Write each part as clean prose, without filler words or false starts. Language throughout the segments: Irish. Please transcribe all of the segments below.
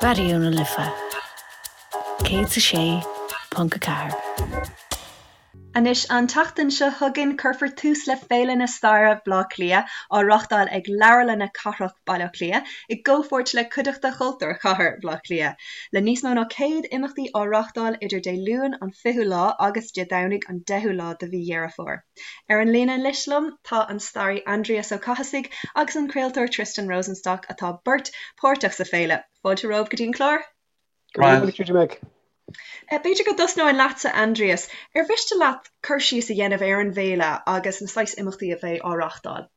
Raidió na Life 106.4. Anois, an tseachtain seo chugainn, cuirfear tús le Féile na Staire Bhaile Átha Cliath, á reáchtáil ag Leabharlanna Cathrach Bhaile Átha Cliath i gcomhpháirt le Cuideachta Chultúir Chathair Bhaile Átha Cliath. Le níos mó ná 100 imeachtaí á reáchtáil idir Dé Luain an 20ú lá agus Dé Domhnaigh an 10ú lá de mhí Dheireadh Fómhair. Ar an líne anois liom tá an staraí Aindrias Ó Cathasaigh agus an craoltóir Tristan Rosenstock atá beirt páirteach sa féile. Fáilte romhaibh go dtí an clár. Go raibh maith agat Meg. B'fhéidir go dtosnóinn leatsa Aindrias. Ar mhiste leat cur síos a dhéanamh ar an bhféile agus na saghas imeachtaí a bheidh á reáchtáil?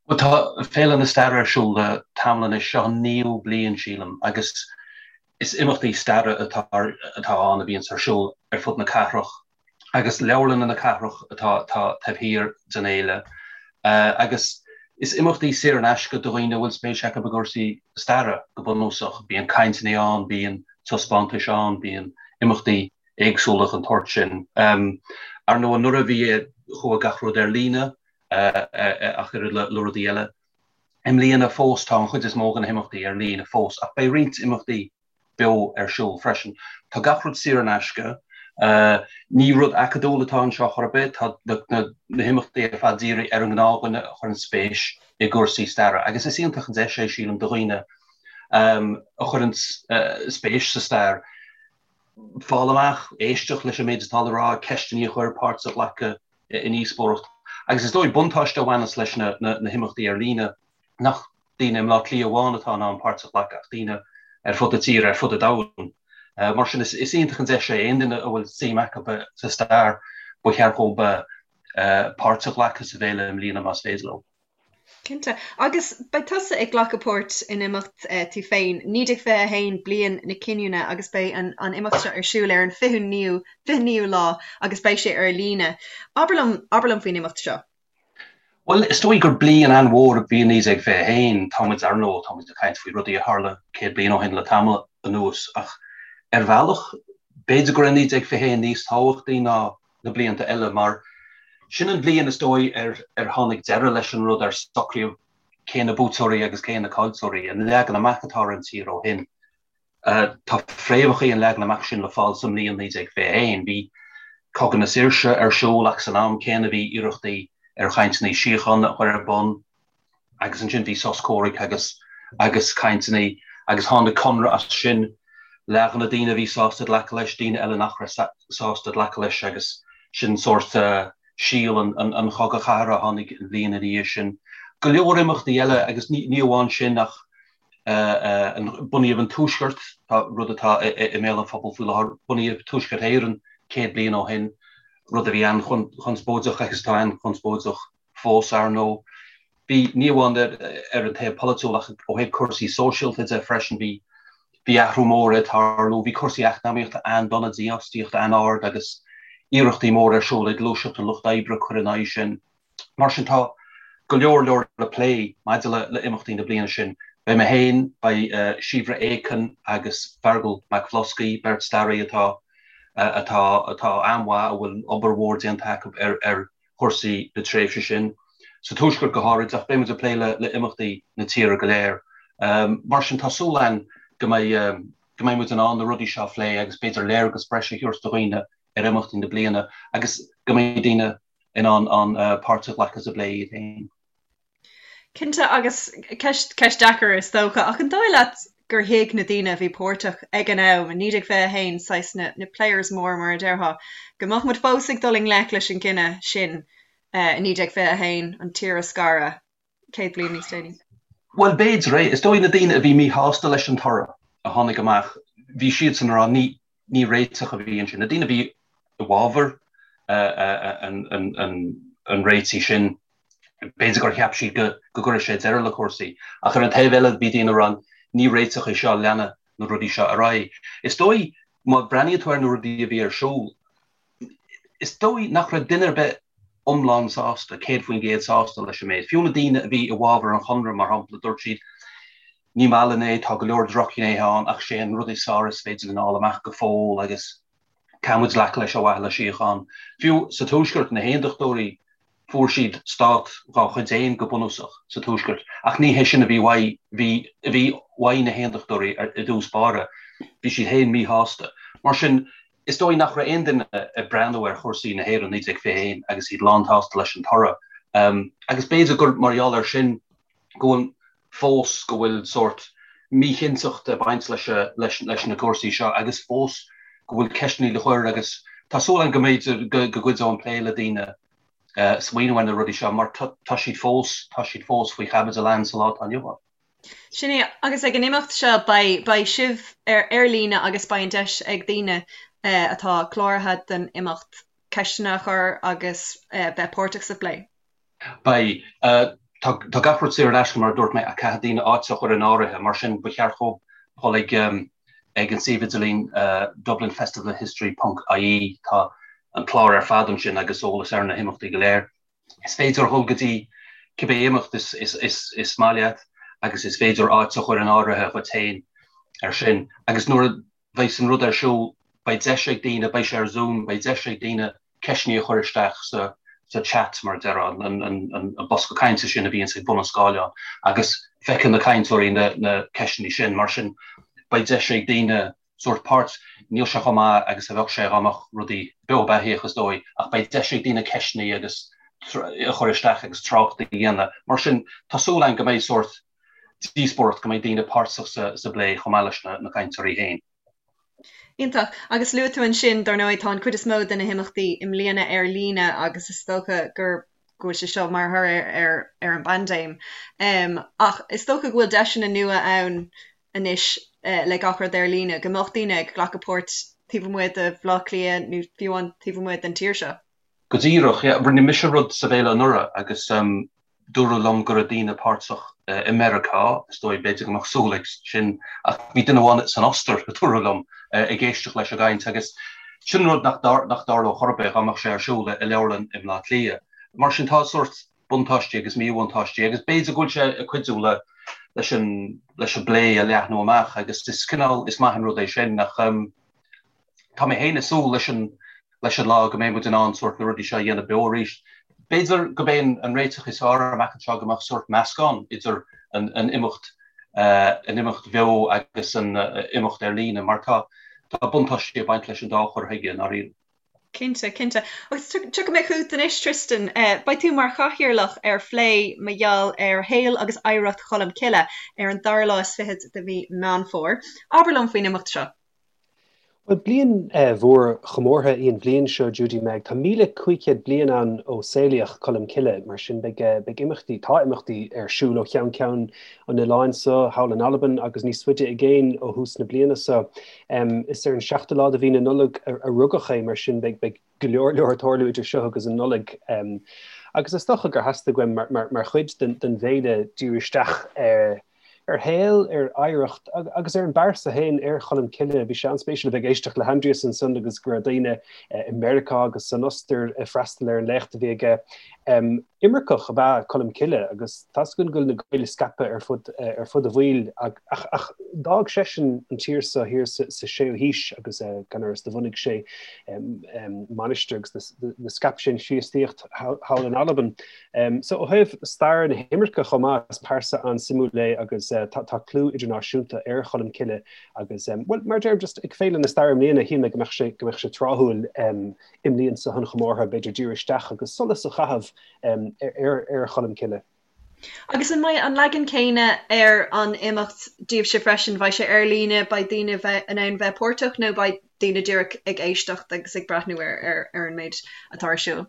Bhuel, tá Féile na Staire ar siúl le tamall anois, seo an naoú bliain, sílim, agus is imeachtaí staire atá atá ann a bhíonns ar siúl ar fud na cathrach agus leabharlanna na cathrach atá atá taobh thiar den fhéile agus is imeachtaí saor in aisce do dhaoine a bhfuil spéis acu i gcúrsaí staire, go bunúsach. Bíonn cainteanna ann, bíonn taispeántais ann, bíonn imeachtaí éagsúla den tsórt sin. Ar ndóigh, anuraidh bhí chuaigh gach rud ar líne ach oiread le rudaí eile. I mbliana fós tá an chuid is mó de na himeachtaí ar líne fós ach beidh roinnt imeachtaí beo ar siúl freisin. Tá gach rud saor in aisce. Ní rud acadúil atá anseo chor ar bith, tá na himeachtaí ar fad dírithe ar an ngnáthdhuine a chuireann spéis i gcúrsaí staire agus is iontach an deis é, sílim, do dhaoine a chuireann spéis sa stair fáil amach, éisteacht leis an méid atá le rá, ceisteanna a chur, páirt a ghlacadh i ndíospóireacht. Agus is dóigh buntáiste a bhaineas leis na himeachtaí ar líne nach daoine i mBleá Cliath amháin atá in ann páirt a ghlacadh ach daoine ar fud na tíre, ar fud an domhain. Mar sin is iontach an deis é aon duine a bhfuil suim acu sa stair, ba cheart dhóibh páirt a ghlacadh sa bhféile i mbliana más féidir leo. Cinnte. Agus beidh tusa ag glacadh páirt in imeacht tú féin, 1921, bliain na cinniúna, agus beidh an an imeacht seo ar siúl ar an 29ú 29ú lá agus beidh sé ar líne. Abair liom, abair liom faoin imeacht seo. Bhuel, is dóigh gur bliain an-mhór a bhí i 1921. Tá muid, ar ndóigh, tá muid ag caint faoi rudaí a tharla 100 bliain ó shin le tamall anuas, ach ar bhealach, b'fhéidir go raibh 1921 níos tábhachtaí ná na blianta eile, mar sin an bhliain is dóigh ar ar tháinig deireadh leis an rud, ar socraíodh cé na buaiteoirí agus cé na caillteoirí, an leagan amach atá ar an tír ó shin. Tá fréamhacha an leagan amach sin le fáil sa mbliain 1921. Bhí Cogadh na Saoirse ar siúl ach san am céanna bhí iarrachtaí ar chainteanna síochána a chur ar bun. Agus ansin bhí sos comhraic agus agus cainteanna agus tháinig conradh as sin. Leath de na daoine a bhí sásta glacadh leis, daoine eile nach raibh sásta glacadh leis agus sin sórt síol an chogaidh chathartha a tháinig an bhliain ina dhiaidh sin. Go leor imeachtaí eile agus ní amháin sin ach bunaíodh an Tuaisceart, rud atá i mbéal an phobail faoi láthair, bunaíodh Tuaisceart Éireann 100 bliain ó shin, rud a bhí an-chonspóideach agus atá an-chonspóideach. fós, ar ndóigh. Bhí, ní amháin ar an taobh polaitiúil ach ó thaobh cúrsaí sóisialta de freisin, bhí, bhí athrú mór ag tarlú. Bhí cúrsaí eacnamaíochta an-dona, dífhostaíocht an-ard agus iarrachtaí móra ar siúl ag Gluaiseacht an Lucht Oibre cur in aghaidh sin. Mar sin tá go leor leor le plé maidir le le imeachtaí na bliana sin. Beidh mé féin, beidh Síobhra Aiken agus Feargal Mac Bhloscaidh, beirt staraí atá atá atá an-mhaith, a bhfuil obair mhór déanta acu ar ar chúrsaí na tréimhse sin, sa Tuaisceart go háirid, ach beidh muid ag plé le imeachtaí na tíre go léir. Mar sin, tá súil againn go mbeidh go mbeidh muid in ann na rudaí seo a phlé agus b'fhéidir léargas breise a thabhairt do dhaoine ar imeachtaí na bliana agus go mbeidh daoine in ann an páirt a ghlacadh sa bplé iad féin. Cinnte, agus ceist, ceist deacair is dócha, ach an dóigh leat gur thuig na daoine a bhí páirteach ag an am, i 1921, saghas na, na players móra mar a déarfá, go mbeadh muid fós ag dul i ngleic leis an gcinneadh sin i 1921, an tír a scaradh, 100 bliain níos déanaí? Bhuel, b'fhéidir é. Is dóigh na daoine a bhí míshásta leis an toradh a tháinig amach, bhí siadsan ag rá ní, ní réiteach a bhí ansin. Na daoine a bhí i bhfabhar an réitigh sin, b'fhéidir gur cheap siad go gcuirfeadh sé deireadh le cúrsaí. Ach ar an taobh eile, bhí daoine ag rá, ní réiteach é seo, leanfaidh na rudaí seo ar aghaidh. Is dóigh, má bhreathnaíonn tú ar na rudaí a bhí ar siúl, is dóigh nach raibh duine ar bith iomlán sásta, 100% sásta leis an méid. Fiú na daoine a bhí i bhfabhar an chonradh, mar shampla, dúirt siad, Ní maith linn é, tá go leor drochghnéithe ann ach sé an rud is fearr is féidir linn a fháil amach go fóill agus caithfidh muid glacadh leis ar mhaithe le síocháin. Fiú sa Tuaisceart, na hAondachtóirí, fuair siad stát dá chuid féin go bunúsach sa Tuaisceart ach ní hé sin a bhí uaidh, bhí, a bhí. Mhaígh na hAontachtóirí i dtús báire, bhí siad féin míshásta. Mar sin, is dóigh nach raibh aon duine ag breathnú ar chúrsaí na hÉireann 1921 agus iad lánshásta leis an toradh. Agus b'fhéidir gur mar gheall air sin go bhfuil fós go bhfuil sórt míchinnteacht ag baint leis leis na cúrsaí seo agus fós go bhfuil ceisteanna le cur agus tá súil agam go mb'fhéidir go gcuideoidh an plé le daoine smaoineamh ar na rudaí seo mar tá siad fós tá siad fós faoi chaibidil ann sa lá atá inniu ann. Sin é, agus ag an imeacht seo beidh beidh sibh ar ar líne agus beidh an deis ag daoine atá cláraithe don imeacht ceisteanna a chur agus bheith páirteach sa phlé. Beidh. Tá gach rud saor in aisce, mar a dúirt mé, ach caithfidh daoine áit a chur in áirithe. Mar sin, ba cheart dhóibh dhul ag ag an suíomh idirlín dublinfestivalofhistory ponc ie. Tá an clár ar fad ansin agus eolas ar na himeachtaí go léir. Is féidir dhul go dtí cibé imeacht is maith leat agus is féidir áit a chur in áirithe dhuit féin ar sin. Agus nuair a bheidh an rud ar siúl, beidh deis ag daoine, beidh sé ar Zoom, beidh deis ag daoine ceisteanna a chur isteach sa sa chat, mar a déarfá, an an bosca cainte sin a bhíonns ag bun an scáileáin, agus feicfidh na cainteoirí na na ceisteanna sin. Mar sin, beidh deis ag daoine sórt páirt, níl sé chomh maith agus a bheadh sé dá mbeadh rudaí beo beathaíoch is dóigh, ach beidh deis ag daoine ceisteanna agus a chur isteach agus trácht a dhéanamh. Mar sin, tá súil againn go mbeidh sórt díospóireacht, go mbeidh daoine páirteach sa bplé chomh maith leis na cainteoirí féin. Iontach. Agus luaigh tú ansin, dar ndóigh, tá an chuid is mó de na himeachtaí i mbliana ar líne agus is dócha gur go bhfuil sé seo mar thoradh ar ar an bpaindéim. Ach is dócha go bhfuil deiseanna nua ann anois le gach rud ar líne, go mbeadh daoine ag glacadh páirt taobh amuigh de Bhaile Átha Cliath nó fiú amháin taobh amuigh den tír seo. Go díreach, yeah. Rinne mise rud sa bhféile anuraidh agus dúradh liom go raibh daoine páirteach i Meiriceá, is dóigh, b'fhéidir go mbeadh súil ag sin, ach bhí duine amháin san Ostair, a dúradh liom, ag éisteacht leis an gcaint agus sin rud nach dtarlódh chor ar bith dá mbeadh sé ar siúl i leabharlann i mBleá Cliath. Mar sin tá sórt buntáistí agus míbhuntáistí agus b'fhéidir go bhfuil sé ag cuidiú le leis an leis an bplé a leathnú amach agus is cineál is maith an rud é sin ach tá mé féin ag súil leis an leis an lá go mbeidh muid in ann sórt na rudaí seo a dhéanamh beo arís. B'fhéidir gurb é an réiteach is fearr amach anseo go mbeadh sórt meascán idir an an imeacht an imeacht bheo agus an imeacht ar líne mar tá tá buntáistí ag baint leis an dá chur chuige i ndáiríre. Cinnte, cinnte. Agus tiocfaidh mé chugat anois, Tristan. Beidh tú mar chathaoirleach ar phlé mar gheall ar shaol agus oidhreacht Cholm Cille ar an dara lá is fichead de mhí Meán Fómhair. Abair liom faoin imeacht seo. Bhuel, bliain mhór chomórtha í an bhliain seo, Judy Meg. Tá 1,500 bliain ann ó saolaíodh Colm Cille, mar sin beidh beidh imeachtaí, tá imeachtaí ar siúl ó cheann ceann an oileáin seo, thall in Albain agus níos faide i gcéin ó thús na bliana seo. Is ar an seachtú lá de mhí na Nollag a rugadh é, mar sin beidh beidh go leor leor ag tarlú idir seo agus an Nollaig. Agus is dócha gur theastaigh uaim mar chuid den bhféile díriú isteach ar ar shaol, ar oidhreacht agus ar an bpearsa féin, ar Cholm Cille. Bhí sé an-spéisiúil a bheith ag éisteacht le hAindrias ansan agus go raibh daoine i Meiriceá agus san Ostair ag freastal ar an léacht a bhí aige. Imirceach ab ea Colm Cille agus tá's againn go bhfuil na Gaeil scaipthe ar fud ar fud an bhaill ach ach d'fhág seisean an tír seo thiar sa séú haois agus gan amhras do bhunaigh sé mainistir agus do scaip sé an Chríostaíocht thall in Albain. So ó thaobh stair na himirce chomh maith, is pearsa an-suimiúil é agus tá clú idirnáisiúnta ar Cholm Cille agus, bhuel, mar a deirim, just ag Féile na Staire i mbliana, shíl mé go mbeadh sé, go mbeadh sé tráthúil i mbliain seo an chomórtha, b'fhéidir díriú isteach agus solas a chaitheamh ar, ar Cholm Cille. Agus an mbeidh an leagan céanna ar an imeacht daoibhse freisin? Beidh sé ar líne, beidh daoine bheith in ann bheith páirteach nó beidh daoine díreach ag éisteacht agus ag breathnú ar, ar, ar an méid atá ar siúl?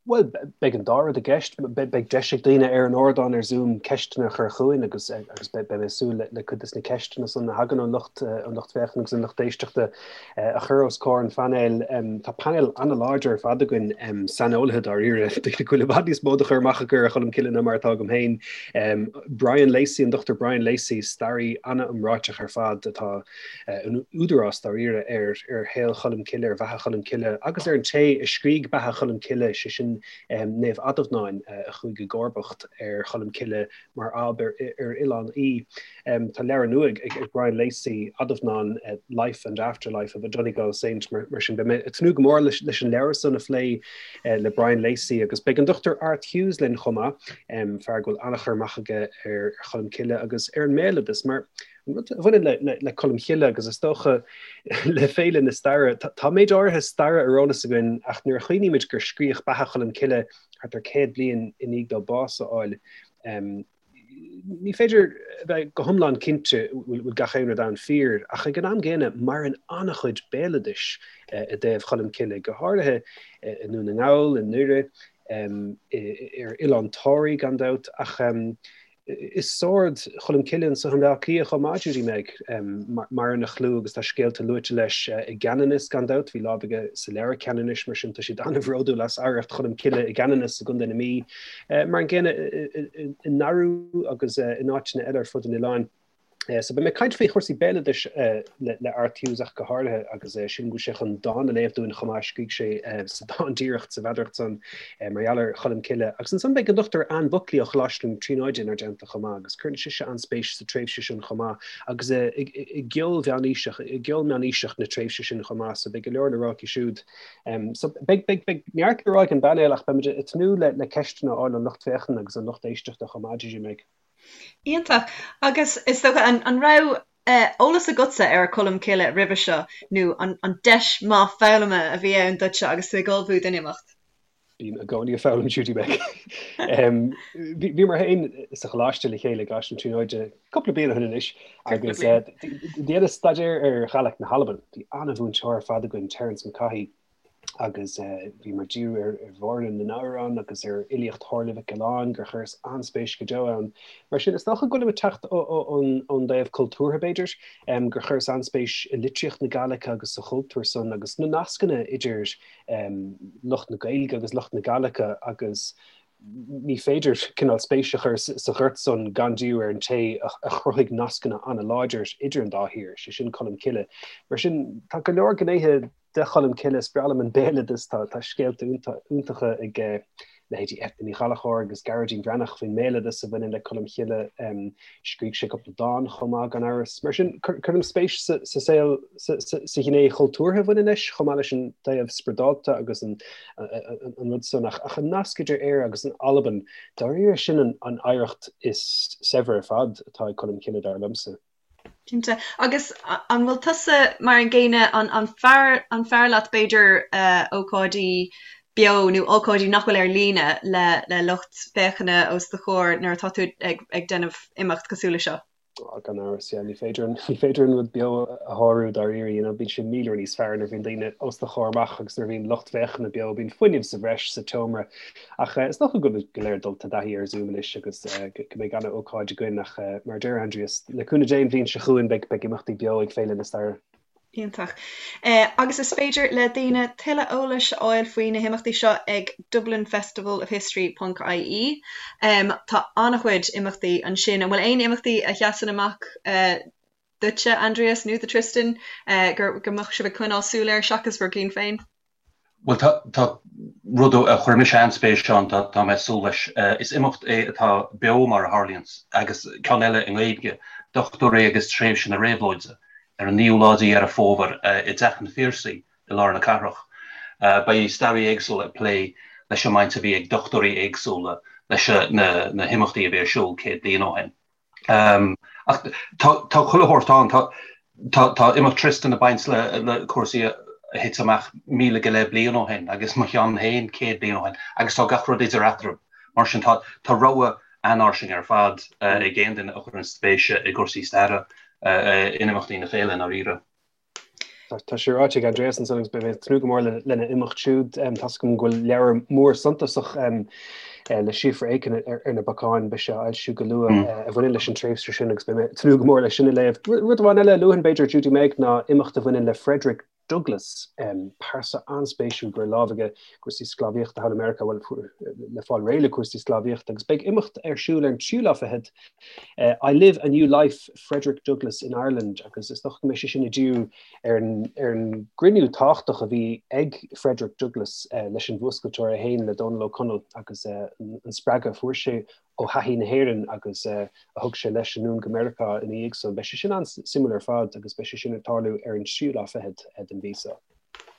Bhuel, beidh an dá rud i gceist. Beidh deis ag daoine ar an ardán ar Zoom ceisteanna a chur chugainn agus agus beidh mé ag súil le cuid de na ceisteanna san a thagann ón lucht ón lucht féachana agus an lucht éisteachta a chur os comhair an phainéil. Tá painéal an-láidir ar fad againn, saineolaithe dáiríre, daoine go bhfuil i bhfad níos mó de chur amach acu ar Cholm Cille ná mar atá agam féin. Brian Lacey, an Dr Brian Lacey, staraí an-iomráiteach ar fad atá in údarás dáiríre ar ar shaol Cholm Cille, ar bheatha Cholm Cille agus ar an té a scrígh beatha Cholm Cille, sé sin. sin Naomh Adhamhnáin a chuaigh i gcomharbacht ar Cholm Cille mar ab ar Oileán Í. Tá leabhar nua ag Brian Lacey, Adhamhnán, Life and Afterlife of a Donegal Saint, mar sin beidh mé ag tnúth go mór leis an leabhar san a phlé le Brian Lacey agus beidh an Dr Art Hughes linn chomh maith, fear go bhfuil an-chur amach aige ar Cholm Cille agus ar an mbéaloideas mar an rud a bhaineann le Colm Cille agus is dócha le Féile na Staire, tá méid áirithe staire ar eolas againn ach nuair a chuimhnímid gur scríodh Beatha Cholm Cille thart ar 100 bliain i ndiaidh dó bás a fháil, ní féidir a bheith go hiomlán cinnte bhfuil gach aon rud ann fíor, ach ag an am gcéanna maireann an-chuid béaloidis i dtaobh Cholm Cille, go háirithe i nDún na nGall, i nDoire, ar Oileán Toraí gan dabht, ach i Sord Cholm Cille anso i mBleá Cliath chomh maith, Judy Meg. Maireann a chlú agus tá scéalta luaite leis i gCeanannas gan dabht, bhí lámh aige sa leabhar Ceanannais, mar sin tá siad an-bhródúil as oidhreacht Cholm Cille i gCeanannas i gContae na Mí. Mar an gcéanna i nDarú agus in áiteanna eile ar fud an oileáin. So beidh mé ag caint faoi chúrsaí béaloidis le Art Hughes ach go háirithe agus sílim go bhfuil sé chun dán a léamh dúinn chomh maith, scrígh sé sa dán díreach sa mheadaracht san mar gheall ar Cholm Cille. Agus ansan beidh an Dr Anne Buckley ó Choláiste na Tríonóide inár dteannta chomh maith agus cuireann sise an-spéis sa tréimhse sin chomh maith agus i gceol mheánaoiseach, i gceol meánaoiseach na tréimhse sin chomh maith so beidh go leor le rá aici siúd. So beidh, beidh, beidh neart le rá ag an bpainéal ach beimid ag tnúth le, le ceisteanna a fháil ón lucht féachana agus an lucht éisteachta chomh maith, Judy Meg. Iontach. Agus is dócha, an, an raibh eolas agatsa ar Cholm Cille roimhe seo nó an, an deis maith foghlama a bhí ann duitse agus tú ag ullmhú don imeacht? Bím i gcónaí ag foghlaim, Judy Meg. Bhíomar féin sa choláiste le chéile i gColáiste na Tríonóide cúpla bliain ó shin anois agus dheineas staidéar ar Ghàidhlig na hAlban. Bhí an-mhúinteoir ar fad againn, Terence McCaughey, agus bhíomar ag díriú ar Mháire na nAmhrán agus ar fhilíocht Shomhairle Mhic Giolláin, gur chuireas an-spéis go deo ann. Mar sin, is dócha go bhfuilim ag teacht ón dtaobh cultúrtha, b'fhéidir, gur chuireas an-spéis i litríocht na Gàidhlige agus sa chultúr san agus na nascanna idir lucht na Gaeilge agus lucht na Gàidhlige agus ní féidir cineál spéis a chur sa ghort san gan díriú ar an té a chruthaigh nascanna an-láidir idir an dá thír, sé sin Colm Cille. Mar sin, tá go leor gnéithe de Cholm Cille, is breá liom an béaloideas, tá scéalta iontacha ag leithéidí Eithne Ní Ghallchóir agus Gearóidín Breathnach faoin mbéaloideas a bhaineann le Colm Cille. Scrígh sé cúpla dán chomh maith, gan amhras. Mar sin, cuirim spéis sa saol, sa ghné chultúrtha a bhaineann leis, chomh maith leis an taobh spioradálta agus an rud san. Ach an nasc idir Éire agus an Albain, dáiríre, sin an oidhreacht is saibhre ar fad atá ag Colm Cille, dar liomsa. Cinnte. Agus an bhfuil tusa mar an gcéanna, an fearr, an fearr leat b'fhéidir ócáidí beo nó ócáidí nach bhfuil ar líne le le lucht féachana os do chomhair nuair atá tú ag ag déanamh imeacht cosúil le seo? Á, gan amhras, yeah. Ní féidir an, ní féidir an rud beo a shárú dáiríre, you know, bíonn sé míle uair níos fearr nuair a bhíonn daoine os do chomhair amach agus nuair a bhíonn lucht féachana beo, bíonn fuinneamh sa bhreis sa tseomra. Ach is dócha go bhfuil go léir dulta i dtaithí ar Zoom anois agus go mbeidh an-ócáid againn ach mar a deir Aindrias, le cúnamh Dé an bhliain seo chugainn beidh imeachtaí beo ag Féile na Staire. Iontach. Agus is féidir le daoine tuilleadh eolais a fháil faoi na himeachtaí seo ag dublinfestivalofhistory ponc ie. Tá an-chuid imeachtaí ansin. An bhfuil aon imeachtaí a sheasann amach duitse, Aindrias, nó do Tristan, go mbeadh sibh ag coinneáil súil air seachas bhur gcinn féin? Bhuel, tá, tá rud a chuir mise an-spéis ann, tá, tá mé ag súil leis. Is imeacht é atá beo mar a tharlaíonns, agus ceann eile i nGaeilge, Dochtúirí agus Tréimhse na Réabhlóide, ar an naoú lá de Dheireadh Fómhair i dTeach an Phiarsaigh i lár na cathrach. Beidh staraithe éagsúla ag plé leis an mbaint a bhí ag dochtúirí éagsúla leis na, na himeachtaí a bhí ar siúl 100 bliain ó shin. Ach tá chuile shórt ann. Tá imeacht Tristan ag baint le cúrsaí a thit amach 1,000 go leith bliain ó shin agus mo cheann féin 100 bliain ó shin agus tá gach rud idir eatarthu. Mar sin tá rogha an-fhairsing ar fad ag aon duine a chuireann spéis i gcúrsaí staire in imeachtaí na féile i ndáiríre. Tá sé ráite ag Aindrias ansan agus beidh mé ag tnúth go mór lena imeacht siúd. Tá's agam go bhfuil leabhar mór suntasach le Síofra Aiken ar na bacáin, beidh sé á fhoilsiú go luath, a bhaineann leis an tréimhse sin agus beidh mé ag tnúth go mór leis sin a léamh. Rud amháin eile a luafainn b'fhéidir, Judy Meg, ná imeacht a bhaineann le Frederick. Douglass, pearsa an-spéisiúil go raibh lámh aige i gcúrsaí sclábhaíochta thall i Meiriceá, bhuel, le fáil réidh le cúrsaí sclábhaíochta, agus beidh imeacht ar siúl ar an tríú lá fichead, I Live a New Life, Frederick Douglass in Ireland, agus is dócha go mbeidh sé sin ag díriú ar an gcruinniú tábhachtach a bhí ag Frederick Douglass leis an bhfuascailteoir é féin, le Dónall Ó Conaill, agus an spreagadh a fuair sé ó thaithí na hÉireann agus a thug sé leis anonn go Meiriceá ina dhiaidh san. Beidh sé sin an-suimiúil ar fad agus beidh sé sin ag tarlú ar an tríú lá fichead den mhí seo.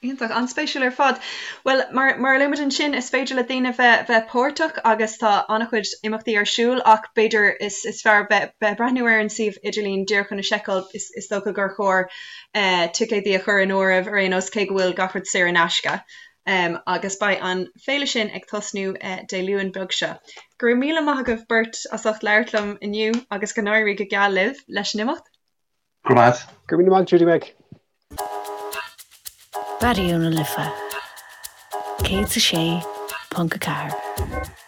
Iontach, an-spéisiúil ar fad. Bhuel, mar mar a luaigh muid ansin, is féidir le daoine bheith bheith páirteach agus tá an-chuid imeachtaí ar siúl ach b'fhéidir is is fearr bheith bheith ag breathnú ar an suíomh idirlín díreach chun a sheiceáil. Is is dócha gur chóir ticéadaí a chur in áirithe ar aon nós cé go bhfuil gach rud saor in aisce. Agus beidh an féile sin ag tosnú Dé Luain beag seo. Go raibh míle maith agaibh beirt as ucht labhairt liom inniu agus go n-éirí go geal libh leis an imeacht. Go raibh maith. Go raibh míle maith, Judy Meg. Raidió na Life 106.4.